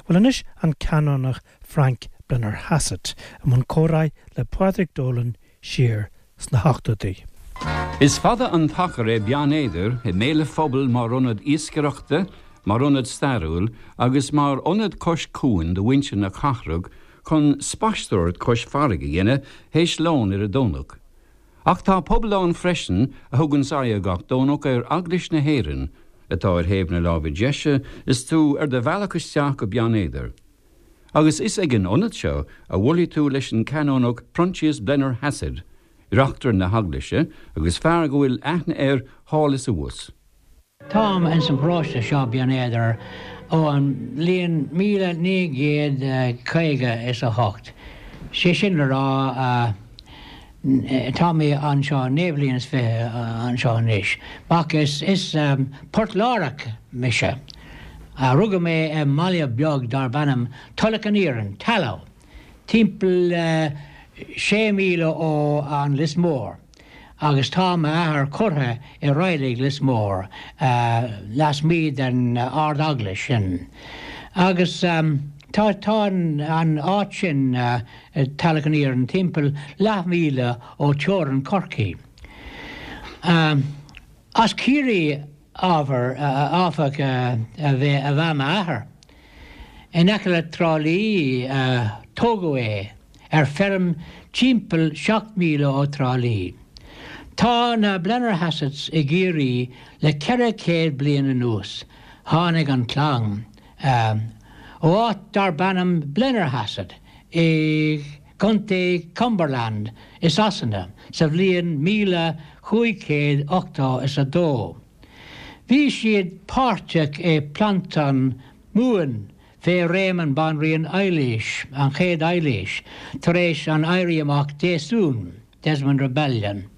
Bhuel anois an Canónach Frank Blennerhassett i mbun comhráidh le Pádraig Dolan siar sna hochtóidí. Is fada an t-achar é Beann Éadair i mbéal an phobail mar ionad iascaireachta, mar ionad stairiúil agus mar ionad cois cuain do mhuintir na cathrach chun spaisteoireacht cois farraige a dhéanamh théis lóin ar an Domhnach. Ach tá pobal ann freisin a thuganns aghaidh gach Domhnach ar Eaglais na hÉireann, atá ar thaobh na láimhe deise is tú ar do bhealach isteach go Beann Éadair. Agus is ag an ionad seo a bhuailfidh tú leis an Canónach Proinsias Blennerhassett, reachtaire na heaglaise agus fear go bhfuil aithne air thall is abhus. Táim ins an bparóiste seo, Beann Éadair, ó an bhliain 1958, sé sin le rá, tá mé anseo 29 bliain anseo anois. Ach is Port Láireach mise. Rugadh mé i mbaile beag darb ainm Tulach an Iarainn, Tallow, timpeall sé míle ó an Lios Mór. Agus tá m'athair curtha i Reilig Lios Mór, lasmuigh den Ard-Eaglais sin. Agus tá tá an áit sin, Tulach an Iarainn, timpeall leathmhíle ó teorainn Chorcaí. As Ciarraí, áfach, ab ea m'athair. In aice le Trá Lí a tógadh é, ar feirm timpeall 7 míle ó Trá Lí. Tá na Blennerhassetts i gCiarraí le 400 bliain anuas. Tháinig an chlann ó áit darb ainm Blennerhassett i gContae Cumberland i Sasana sa bhliain 1582. Bhí siad páirteach i bPlantáil Mumhan fé réim an Banríon Eilís, an chéad Eilís, tar éis an Éirí Amach Déasún, Desmond Rebellion.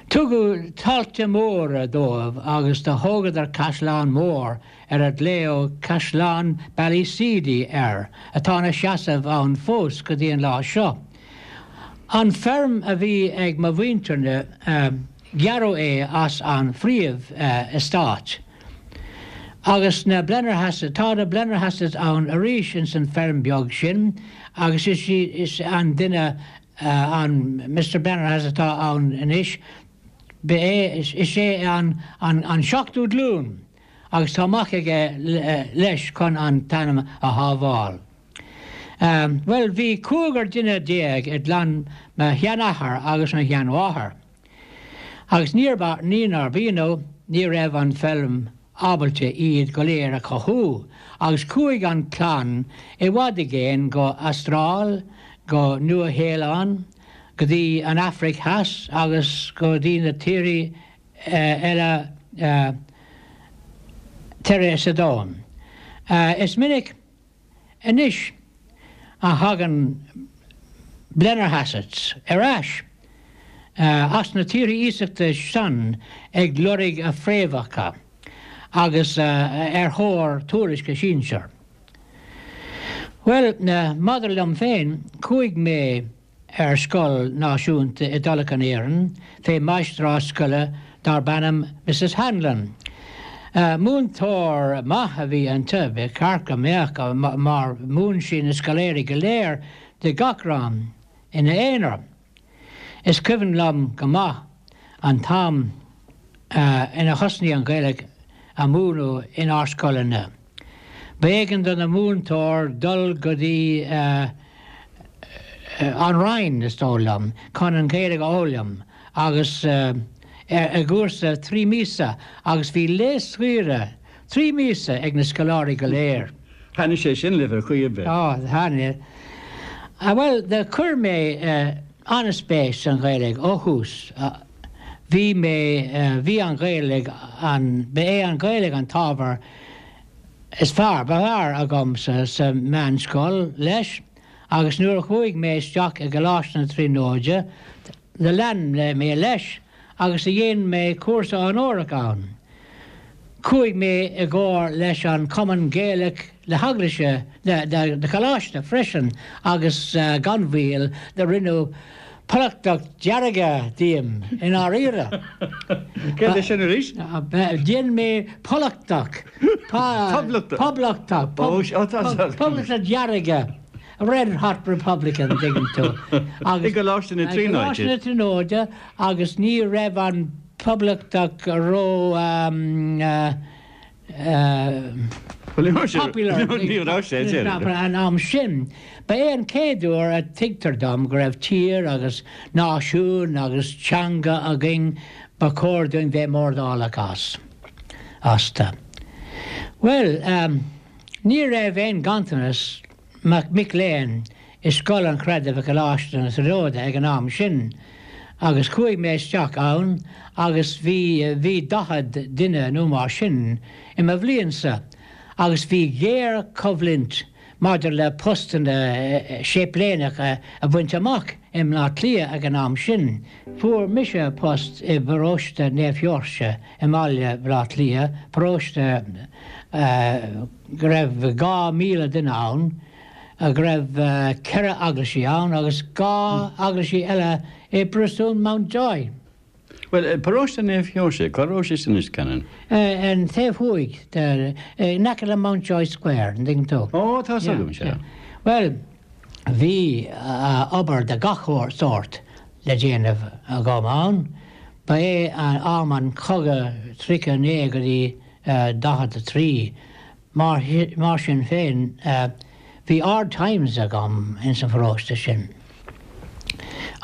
Tugadh tailte móra dóibh agus do thógadar caisleán mór ar a glaodh Caisleán Ballyseedy air, atá ina sheasamh ann fós go dtí an lá seo. An feirm a bhí ag mo mhuintirne, Gearradh é as an phríomh-eastát. Agus na Blennerhassetts, tá na Blennerhassetts ann arís ins an feirm beag sin agus is is an duine an Mister Blennerhassett atá ann anois, ba é, is é an an seachtú glúin agus tá mac aige leis chun an t-ainm a shábháil. Bhuel, bhí cúigear duine i gclann mo sheanathar agus mo sheanmháthar. Agus níor, ní nárbh ionadh, ní raibh an feilm ábalta iad go léir a chothú, agus chuaigh an chlann i bhfad i gcéin go Astráil, go Nua Shéalainn, go dtí an Afraic Theas agus go dtí na tíortha eile tíortha sa domhan. Is minic. Anois a thagann Blennerhassetts ar ais as na tíortha iasachta san ag lorg a phréamhacha agus ar thóir tuairisc a sinsear. Bhuel, maidir liom féin, chuaigh mé ar scoil náisiúnta i dTulach an Iarainn fé mháistreás scoile darb ainm Mrs Hanlon. Múinteoir maith a bhí inti, ba cheart go mbeadh, mar mhúin sí na scoláirí go léir de gach rang ina aonar. Is cuimhin liom go maith an t-am ina thosnaigh an Ghaeilge a múineadh inár scoileanna. B'éigean do na múinteoir dul go dtí an Rinn, is dóigh liom, chun an Ghaeilge a fhoghlaim agus i gcúrsa 3 míosa agus bhí lae saoire 3 míosa ag na scoláirí go léir. Thaitnigh sé sin libh ar chaoi ar bith? Á, thaitnigh. Bhuel, do chuir mé an-spéis san Ghaeilge ó thús. Bhí mé, bhí an Ghaeilge, an, ba é an Ghaeilge an t-ábhar is fearr, ba fhearr agam sa, sa meánscoil leis agus nuair a chuaigh mé isteach i gColáiste na Tríonóide do lean mé leis agus do dhein mé cúrsa onórach ann. Chuaigh mé i gcomhar leis an Chumann Gaelach na hEaglaise, na Coláiste freisin agus gan mhoill do rinneadh. Poblachtach dearga díom, i ndáiríre. Céard é sin arís? Dhein mé Poblachtach. Poblachtach. Poblachtach. Poblachtach dearga. Red Hot Republican, an dtuigeann tú. I gColáiste na Tríonóide. I gColáiste na Tríonóide agus ní raibh an Poblachtach ró popular an am sin. Ba é an chéad uair a tuigtear dom go raibh tír agus náisiún agus teanga againn ba chóir dúinn bheith mórdhálach as. Astu. Bhuel, ní raibh aon ganntanas mic léinn i Scoil an Chreidimh i gColáiste na Tríonóide ag an am sin agus chuaigh mé isteach ann agus bhí, bhí 40 duine nó mar sin i mo bhliainsa agus bhí géarchoimhlint maidir le postanna séipléineacha a bhaint amach i mBleá Cliath ag an am sin. Fuair mise post i bparóiste Naomh Sheoirse i mbaile Bhleá Cliath, paróiste go raibh 2,000 duine ann, go raibh 4 eaglaisí ann agus 2 eaglaisí eile i bPriosún Mountjoy. Bhuel, paróiste Naomh Sheoirse, cá raibh sé sin anois, Canon? An taobh thuaidh de, in aice le Mountjoy Square, an dtuigeann tú? Ó, tá 's agam, sea. Bhuel, bhí obair de gach sórt le déanamh agam ann. Ba é am an chogaidh 39 go dtí 43. Mar sin féin, bhí hard times agam ins an pharóiste sin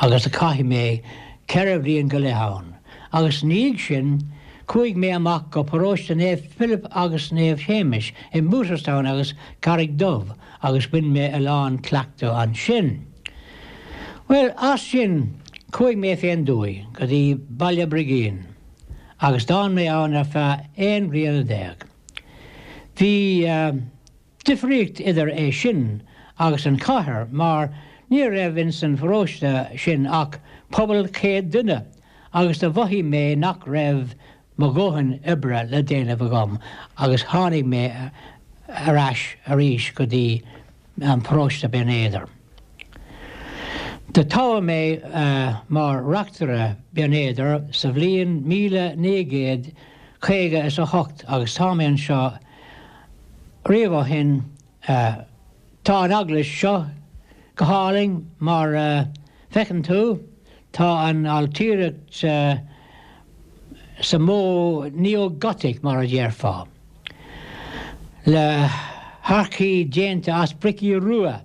agus chaith mé 4 bhliain go leith ann. Agus ina dhiaidh sin, chuaigh mé amach go paróiste Naomh Philip agus Naomh Shéamais i mBooterstown agus Carraig Dubh agus bhain mé a lán cleachtadh ansin. Bhuel, as sin, chuaigh mé fén dtuaith go dtí Baile Brigín agus d'fhan mé ann ar feadh 11 bliana. Bhí difríocht idir é sin agus an chathair mar ní raibh ins an pharóiste sin ach pobal 100 duine agus do mhothaigh mé nach raibh mo dhóthain oibre le déanamh agam agus tháinig mé ar ais arís go dtí an paróiste Binn Éadair. Do toghadh mé mar reachtaire Binn Éadair sa bhliain 1958 agus tá mé anseo riamh ó shin. Tá an eaglais seo go hálainn mar a feiceann tú. Tá an ailtireacht sa modh neo-Gothic mar a déarfá, le hárcaí déanta as bricí rua.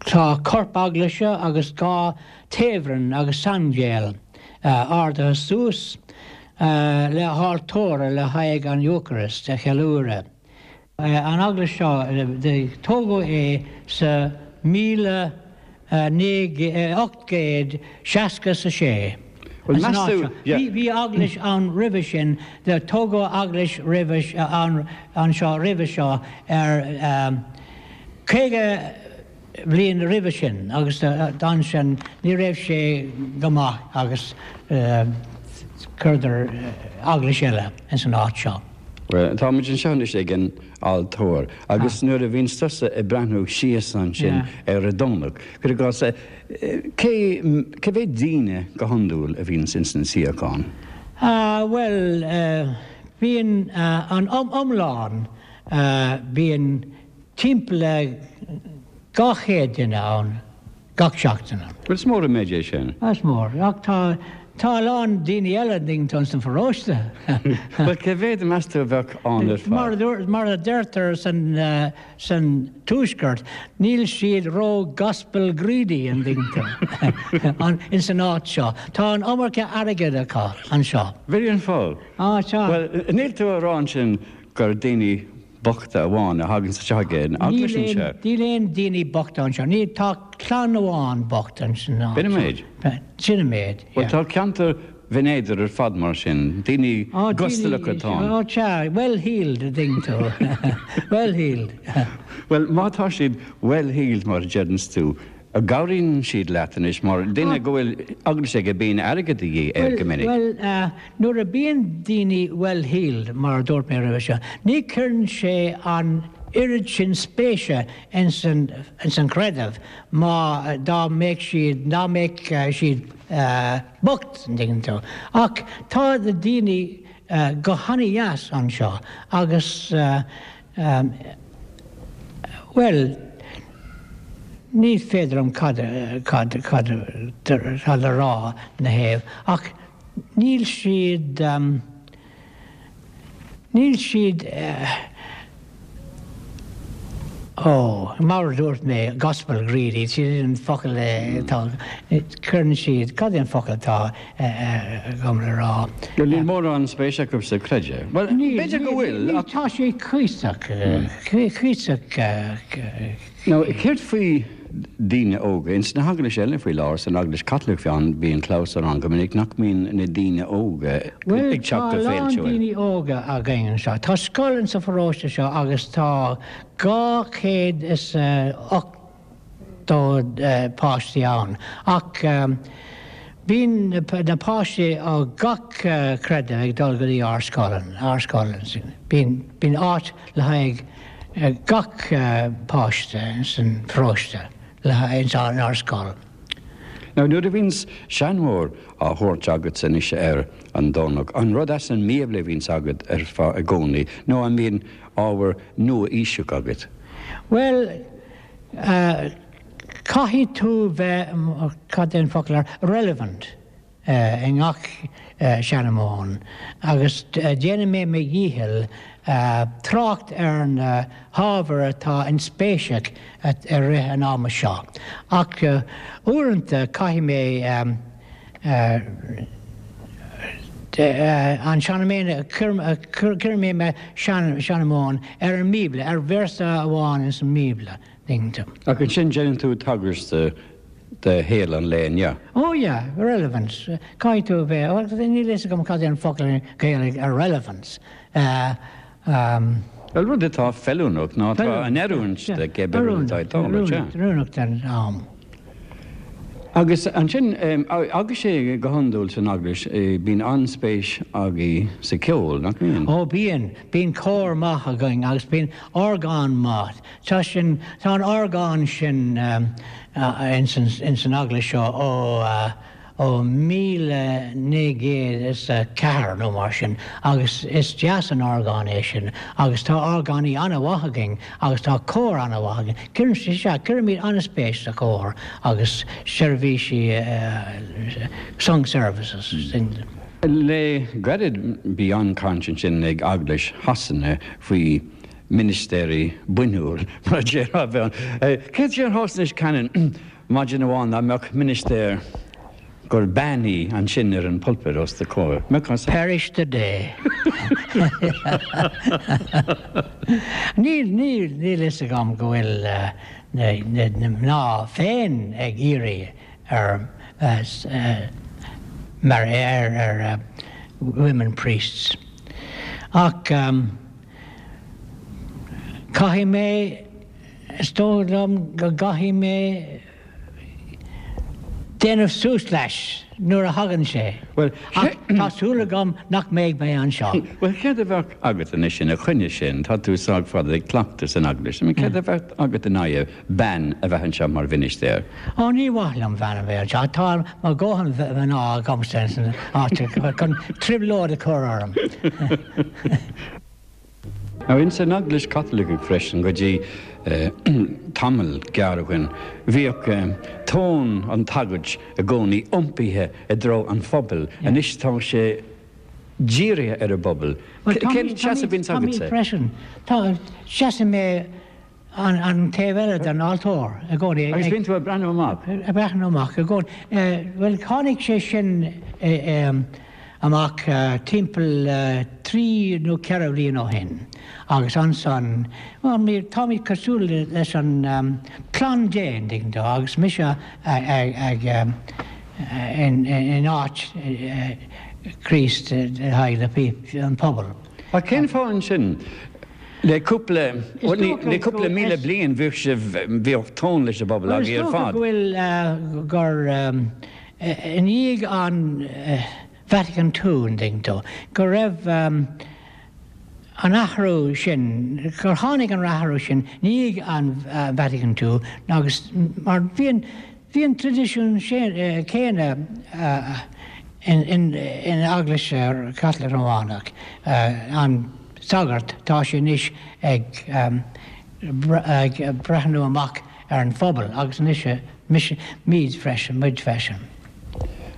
Tá corp eaglaise agus 2 taobhroinn agus saindéal ardaithe suas le haltóra le haghaidh an Eocairist a cheiliúradh. An eaglais seo, tógadh é sa 1866. Bhuel, meas tú, yeah. Bhí eaglais ann roimhe sin, tógadh eaglais roimhe, ann anseo roimhe seo ar 50 bhliain roimhe sin agus ansin ní raibh sé go maith agus chuireadar eaglais eile ins an áit seo. Bhuel, tá muid anseo anois ag an altóir agus nuair a bhíonns tusa ag breathnú síos ansin ar an Domhnach, cuir i gcás, cé, cé mhéad daoine go hiondúil a bhíonns ins na suíocháin? Bhuel, bíonn an iomlán, bíonn timpeall le 200 duine ann gach seachtain. Bhuel, is mór an méid é sin. Is mór, ach tá, tá a lán daoine eile an dtuigeann tú ins an pharóiste. Bhuel, cé mhéad meas tú a bheadh ann ar fad? Mar a dúirt, mar a deirtear san, san tuaisceart, níl siad ró gospel greedy an dtuigeann tú, an, ins an áit seo. Tá an iomarca airgid acu anseo. B'in an fáth. Á, tá. Bhuel, níl tú a rá ansin gur daoine bochta amháin a thagann isteach ag an eaglais anseo. Níl aon daoine bochta anseo. Níl, tá clann amháin bocht ansin. B'in an méid? Sin an méid, yeah. Bhuel, tá ceantar Bhinn Éadair ar fad mar sin, daoine gustalacha atá ann. Ó, sea, well heeled, a dtuigeann tú. Well heeled. Bhuel, má tá siad well heeled, mar a deireanns tú, an gcabhraíonn siad leat anois mar duine go bhfuil eaglais aige bíonn airgead de dhíth air go minic. Bhuel, nuair a bíonn daoine well heeled, mar a dúirt mé roimhe seo, ní chuireann sé an. oiread sin spéise ins an chreideamh má dá mbeadh siad, dá mbeadh siad bocht, an dtuigeann tú. Ach tá na daoine go hana-dheas anseo agus bhuel, ní féidir liom cad, cad, cad, cad a rá ina thaobh ach níl siad, Níl siad, ó, mar a dúirt mé, gospel greedy, sin an focal atá, cuireann siad, cad é an focal atá agam le rá? Bhuel, níl mórán spéise acu sa chreideamh. Bhuel, b'fhéidir go bhfuil, ach. Tá sé cuíosach, cuíosach. Now, céard faoi daoine óga? Ins na heaglais eile faoi láthair, san Eaglais Chaitliceach fiú, bíonn clabhsúr ann go minic nach mbíonn na daoine óga Bhuel, ag tá teacht a go lán féiltiúil. daoine óga againn anseo. Tá scoil insa pharóiste seo agus tá 280 páistí ann. Ach bíonn na páistí ó gach creideamh ag dul go dtí ár scoil, ár scoil. Bíonn, bíonn áit le haghaidh gach páiste san pharóiste le haghaidh inár scoil. Now nuair a bhíonns seanmóir á thabhairt agatsa anois ar an Domhnach, an rud as an mBíobla a bhíonns agat ar fad i gcónaí nó an mbíonn ábhar nua-aoiseach agat? Bhuel, caithfidh tú bheith, cad é an focal ar, relevant. i ngach seanmóin agus déanfaidh mé mo dhícheall trácht ar na hábhair atá inspéiseach i rith an ama seo. Ach uaireanta caithfidh mé an seanmóin, cuirfidh mé mo sheanmóin ar an mBíobla, ar véarsa amháin ins an mBíobla. Ach ansin déanann tú tagairt do shaol an lae inniu. Oh yeah, relevance. Caithfidh tú a bheith, bhuel níl a fhios agam cad é an focal i nGaeilge ar relevance. Bhuel, rud atá feiliúnach nó atá in oiriúint do cibé rud atá ag tarlú, sea. Oiriúnach don am. Agus ansin, agus sé go hiondúil san Eaglais, bíonn an-spéis agaibh sa cheol, nach mbíonn? Ó bíonn. Bíonn cór maith againn agus bíonn orgán maith. Tá sin, tá an orgán sin ins an eaglais seo ó ó 1904 nó mar sin agus is deas an orgán é sin agus tá orgánaí an-mhaith againn agus tá cór an-mhaith againn. Cuireann, sea, cuirimid an-spéis sa chór agus seirbhísí sung services. Le gairid bhí an-chaint ansin ag Eaglais Shasana faoi ministéirí bainiúil, mar a déarfá, a bheith ann. Céard a déarfá anois, Canon, maidin amháin dá mbeadh ministéir gur bean í ansin ar an pulpit os do chomhair? Mbeadh an. Perish the day. Níl, níl, níl fhios agam go bhfuil na, na mná féin ag iarraidh ar, mar, ar, ar women priests. Ach. Caithfidh mé, is dóigh liom go gcaithfidh mé déanamh suas leis nuair a thagann sé. Ach tá súil agam nach mbeidh mé anseo. Bhuel, céard a bheadh agat anois ina choinne sin? Tá tú sách fada ag cleachtadh san eaglais. I mean, céard a bheadh agat in aghaidh bean a bheith anseo mar mhinistéir? Ó, ní mhaith liom bean a bheith anseo. Tá mo dhóthain mná agamsa san áit chun trioblóid a chur orm. Now ins an Eaglais Chaitliceach freisin go dtí tamall gearr ó shin bhíodh tón an tsagairt i gcónaí iompaithe i dtreo an phobail. Anois tá sé dírithe ar an bpobal. Cén seasamh a bhíonns agatsa? Táimid freisin. Tá, seasann mé an taobh eile den altóir i gcónaí. Agus bíonn tú ag breathnú amach? Ag breathnú amach i gcónaí. Bhuel, tháinig sé sin amach timpeall trí nó ceithre bhliain ó shin agus ansan, bhuel, táimid cosúil leis an clann Dé, an dtuigeann tú, agus mise ag in áit Chríost le haghaidh an pobal. Ach cén fáth ansin? Le cúpla, le cúpla míle bliain bhíodh sibh, bhíodh tón leis an bpobal agaibh ar fad. Is dócha go bhfuil, gur i ndiaidh an Vatican II, an dtuigeann tú, go raibh. an athrú sin, gur tháinig an athrú sin i ndiaidh an Vatican II agus mar bhí an, bhí an traidisiún céanna in Eaglais Chaitliceach Rómhánach, an sagart, tá sé anois ag ag breathnú amach ar an phobal agus anois mise, muid freisin, muid freisin.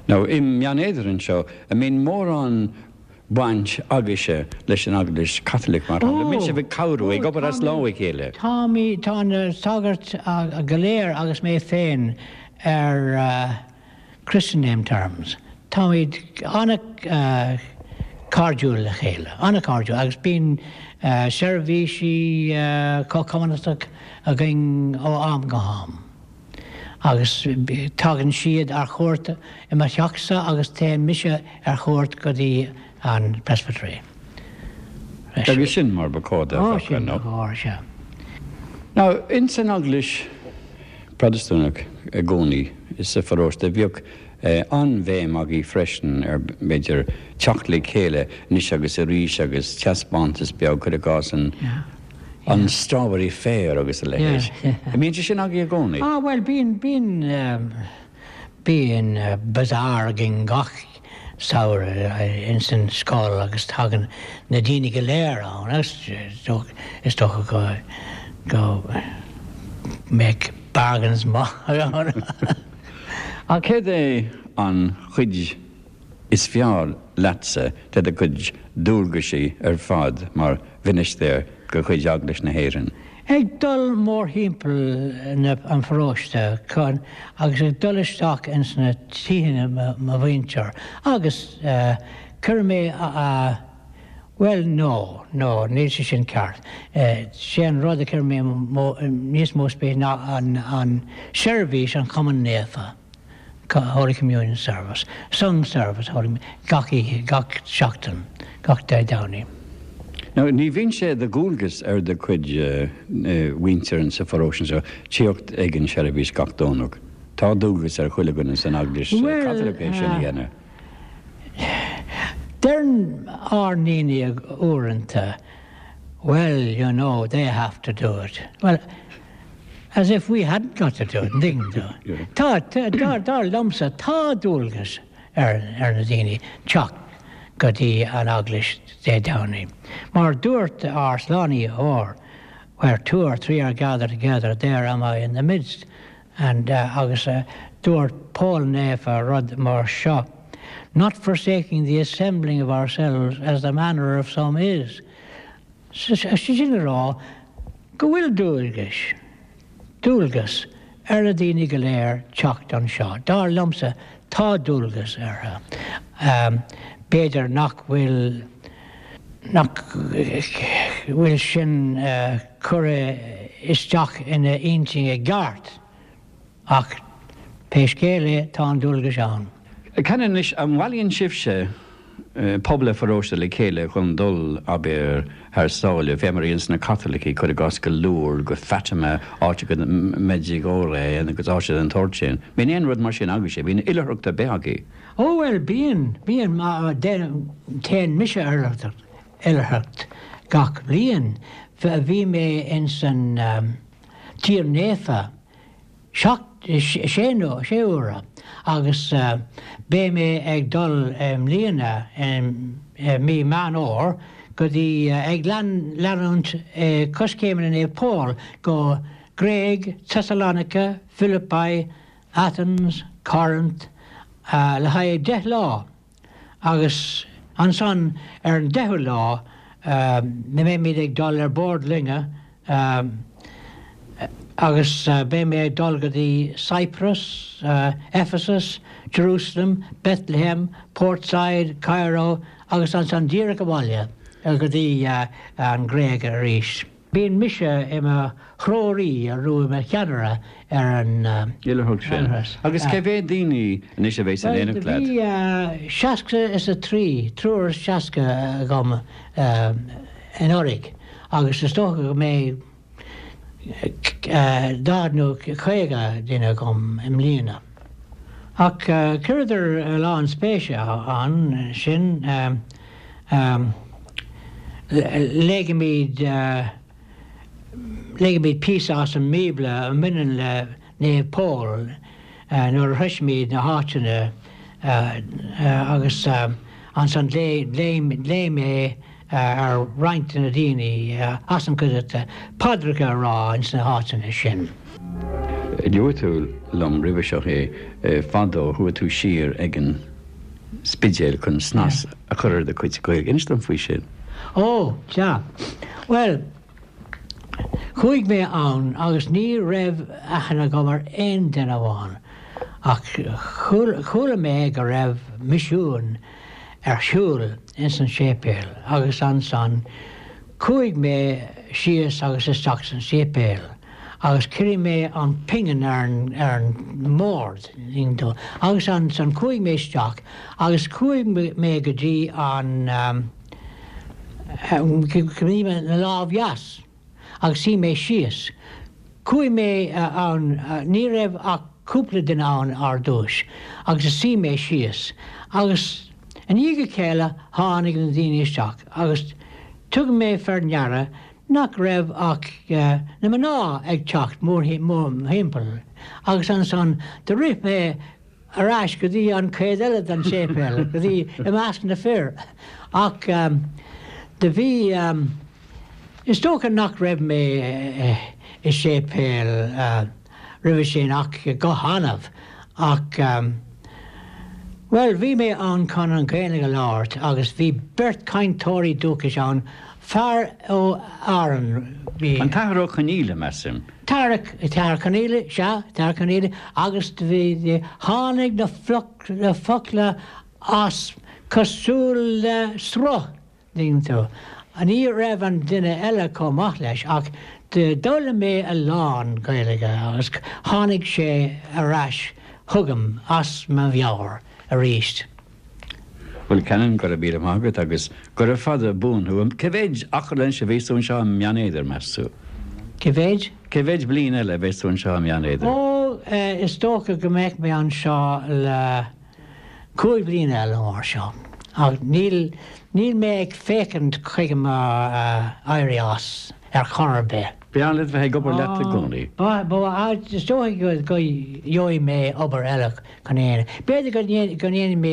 Now, i mBeann Éadair anseo, an mbíonn mórán baint agaibhse leis an Eaglais Chaitliceach, mar shampla? An mbíonn sibh ag cabhrú, ag obair as lámh a chéile? Táimid, tá na sagairt go léir agus mé féin ar Christian name terms. Táimid an-chairdiúil le chéile, an-chairdiúil, agus bíonn seirbhísí comhchumannacha againn ó am go ham. Agus tagann siad ar chuairt i mo theachsa agus téann mise ar chuairt go dtí an presbytery. Agus sin mar ba chóir do bheadh, sin ba chóir, sea. Now, ins an Eaglais Protastúnach i gcónaí sa pharóiste, bhíodh an-bhéim agaibh freisin ar, b'fhéidir, teacht le chéile anois agus arís agus taispeántas beag, cuir i gcás an, An Strawberry Fair agus a leithéid. An mbíonn sé sin agaibh i gcónaí? Ah bhuel bíonn, bíonn, bíonn bazaar againn gach samhradh ins an scoil agus tagann na daoine go léir ann agus is dócha go, go mbeadh bargains maith ann. Ach céard é an chuid is fearr leatsa de do chuid dualgaisí ar fad mar mhinistéir de chuid Eaglais na hÉireann? Ag dul mórthimpeall na an pharóiste chun agus ag dul isteach ins na tithe mo mhuintir agus cuireann mé a bhuel no, no, níl sé sin ceart. Sé an rud a chuireann mé níos mó spéis ná an an seirbhís an Chomaoin Naofa. Holy Communion Service, Sung Service, Holy gach oíche, gach seachtain, gach Dé Domhnaigh. Now, ní bhíonn sé de dhualgas ar do chuid mhuintir sa pharóiste seo tíocht ag an seirbhís gach Domhnach. Tá dualgas ar chuile dhuine san Eaglais Chaitliceach é sin a dhéanamh. Deireann ár ndaoine uaireanta, Well, you know, they have to do it. Well, As if we hadn't got to do it, an dtuigeann tú? Tá, tá, dar liomsa, tá dualgas ar, ar na daoine teacht go dtí an eaglais Dé Domhnaigh. Mar dúirt ár Slánaitheoir, where two or three are gathered together, there am I in the midst. And, agus dúirt Pól Naofa rud mar seo, not forsaking the assembling of ourselves as the manner of some is. Sé sin le rá go bhfuil dualgais, dualgas ar na daoine go léir teacht anseo. Dar liomsa, tá dualgas orthu. B'fhéidir nach bhfuil, nach bhfuil sin curtha isteach ina intinn i gceart. Ach pé scéal é, tá an dualgas ann. Can anois, an mbailíonn sibhse pobal an pharóiste le chéile chun dul, abair, thar sáile, fé mar a dhéananns na Caitlicigh, cuir i gcás, go Lourdes, go Fatima, áiteacha Medjugorje agus áiteacha den tsórt sin. Bíonn aon rud mar sin agaibhse? Bíonn oilithreacht ar bith agaibh? Ó bhuel, bíonn, bíonn, téann mise ar oilithreacht gach bliain. Bhí mé ins an Tír Naofa 7, sé nó sé huaire agus beidh mé ag dul i mbliana i mí Meán Fhómhair go dtí ag leanúint coiscéimeanna Naomh Pól go Gréig, Thessalonica, Philippi, Athens, Corinth le haghaidh 10 lá. Agus ansan ar an deichiú lá beimid ag dul ar bord loinge agus beidh mé ag dul go dtí Cyprus, Ephesus, Jerusalem, Bethlehem, Port Said, Cairo agus ansan díreach abhaile go dtí an Ghréig arís. Bíonn mise i mo threoraí nó i mo cheannaire ar an oilithreacht sin. Agus cé mhéad daoine anois a bheas in éineacht leat? Bhuel, bhí seasca is a trí, triúr is seasca agam anuraidh agus is dócha go mbeidh 40 nó 50 duine agam i mbliana. Ach chuireadar a lán spéise ann sin. Léighimid léighimid píosa as an mBíobla a mbaineann le Naomh Pól nuair a shroisimid na háiteanna agus ansan léim mé ar roinnt de na daoine as an gcuideachta paidreacha a rá ins na háiteanna sin. Luaigh tú liom roimhe seo é, fadó chuaigh tú siar ag an Spidéal chun snas a chur ar do chuid Gaeilge. Inis dom faoi sin. Ó, sea. Bhuel, chuaigh mé ann agus ní raibh aithne agam ar aon duine amháin ach chuala mé go raibh misiún ar siúl ins an séipéal agus ansan chuaigh mé síos agus isteach san séipéal agus chuir mé an pingin ar an ar an mbord agus ansan chuaigh mé isteach agus chuaigh mé go dtí an go dtí mo lámh dheas. agus shuigh mé síos. Chuaigh mé ann, ní raibh ach cúpla duine ann ar dtúis, agus shuigh mé síos. Agus i ndiaidh a chéile tháinig na daoine isteach agus thug mé faoi ndeara nach raibh ach na mná ag teacht mórthimpeall agus ansan do rith mé ar ais go dtí an chuid eile den séipéal, go dtí i measc na fir. Ach do bhí, is dócha nach raibh mé i séipéal roimhe sin ach go hannamh, ach, bhuel, bhí mé ann chun an Ghaeilge a labhairt agus bhí beirt chainteoirí dúchais ann, fear ó Árainn, bhí. An tAthair Ó Conaola, measaim. Tara, Tara Conaola, sea, Tara Conaola, agus bhí, tháinig na na focla as cosúil le sruth, tuigeann tú. Ní raibh an duine eile chomh maith leis ach d'fhoghlaim mé a lán Gaeilge agus tháinig sé ar ais chugam as mo mheabhair arís. Bhuel, Canon, go raibh míle maith agat agus gura fada buan thú. Cé mhéid achar anois a bheas tú anseo i mBeann Éadair, meas tú? Cé mhéid? Cé mhéid bliain eile a bheas tú anseo i mBeann Éadair? Ó, is dócha go mbeidh mé anseo le cúig bliana eile mar seo. Ach níl, níl mé ag féachaint chuige mo éirí as ar chor ar bith. B'fhearr leat bheith ag obair leat i gcónaí. Ba, ba, is dócha go gheobhaidh mé obair eile chun é. B'fhéidir go ndéanfaidh mé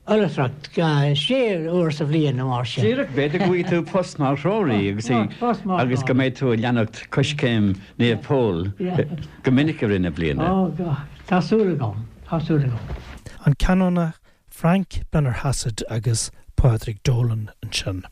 oilithreacht sé uair sa bhliain nó mar sin. Díreach, b'fhéidir go bhfaighidh tú post mar threoraí agus agus go mbeidh tú ag leanacht coiscéim Naomh Pól go minic i rith na bliana. Ó, tá súil agam, tá súil agam. An Canónach Frank Blennerhassett agus Pádraig Dolan ansin.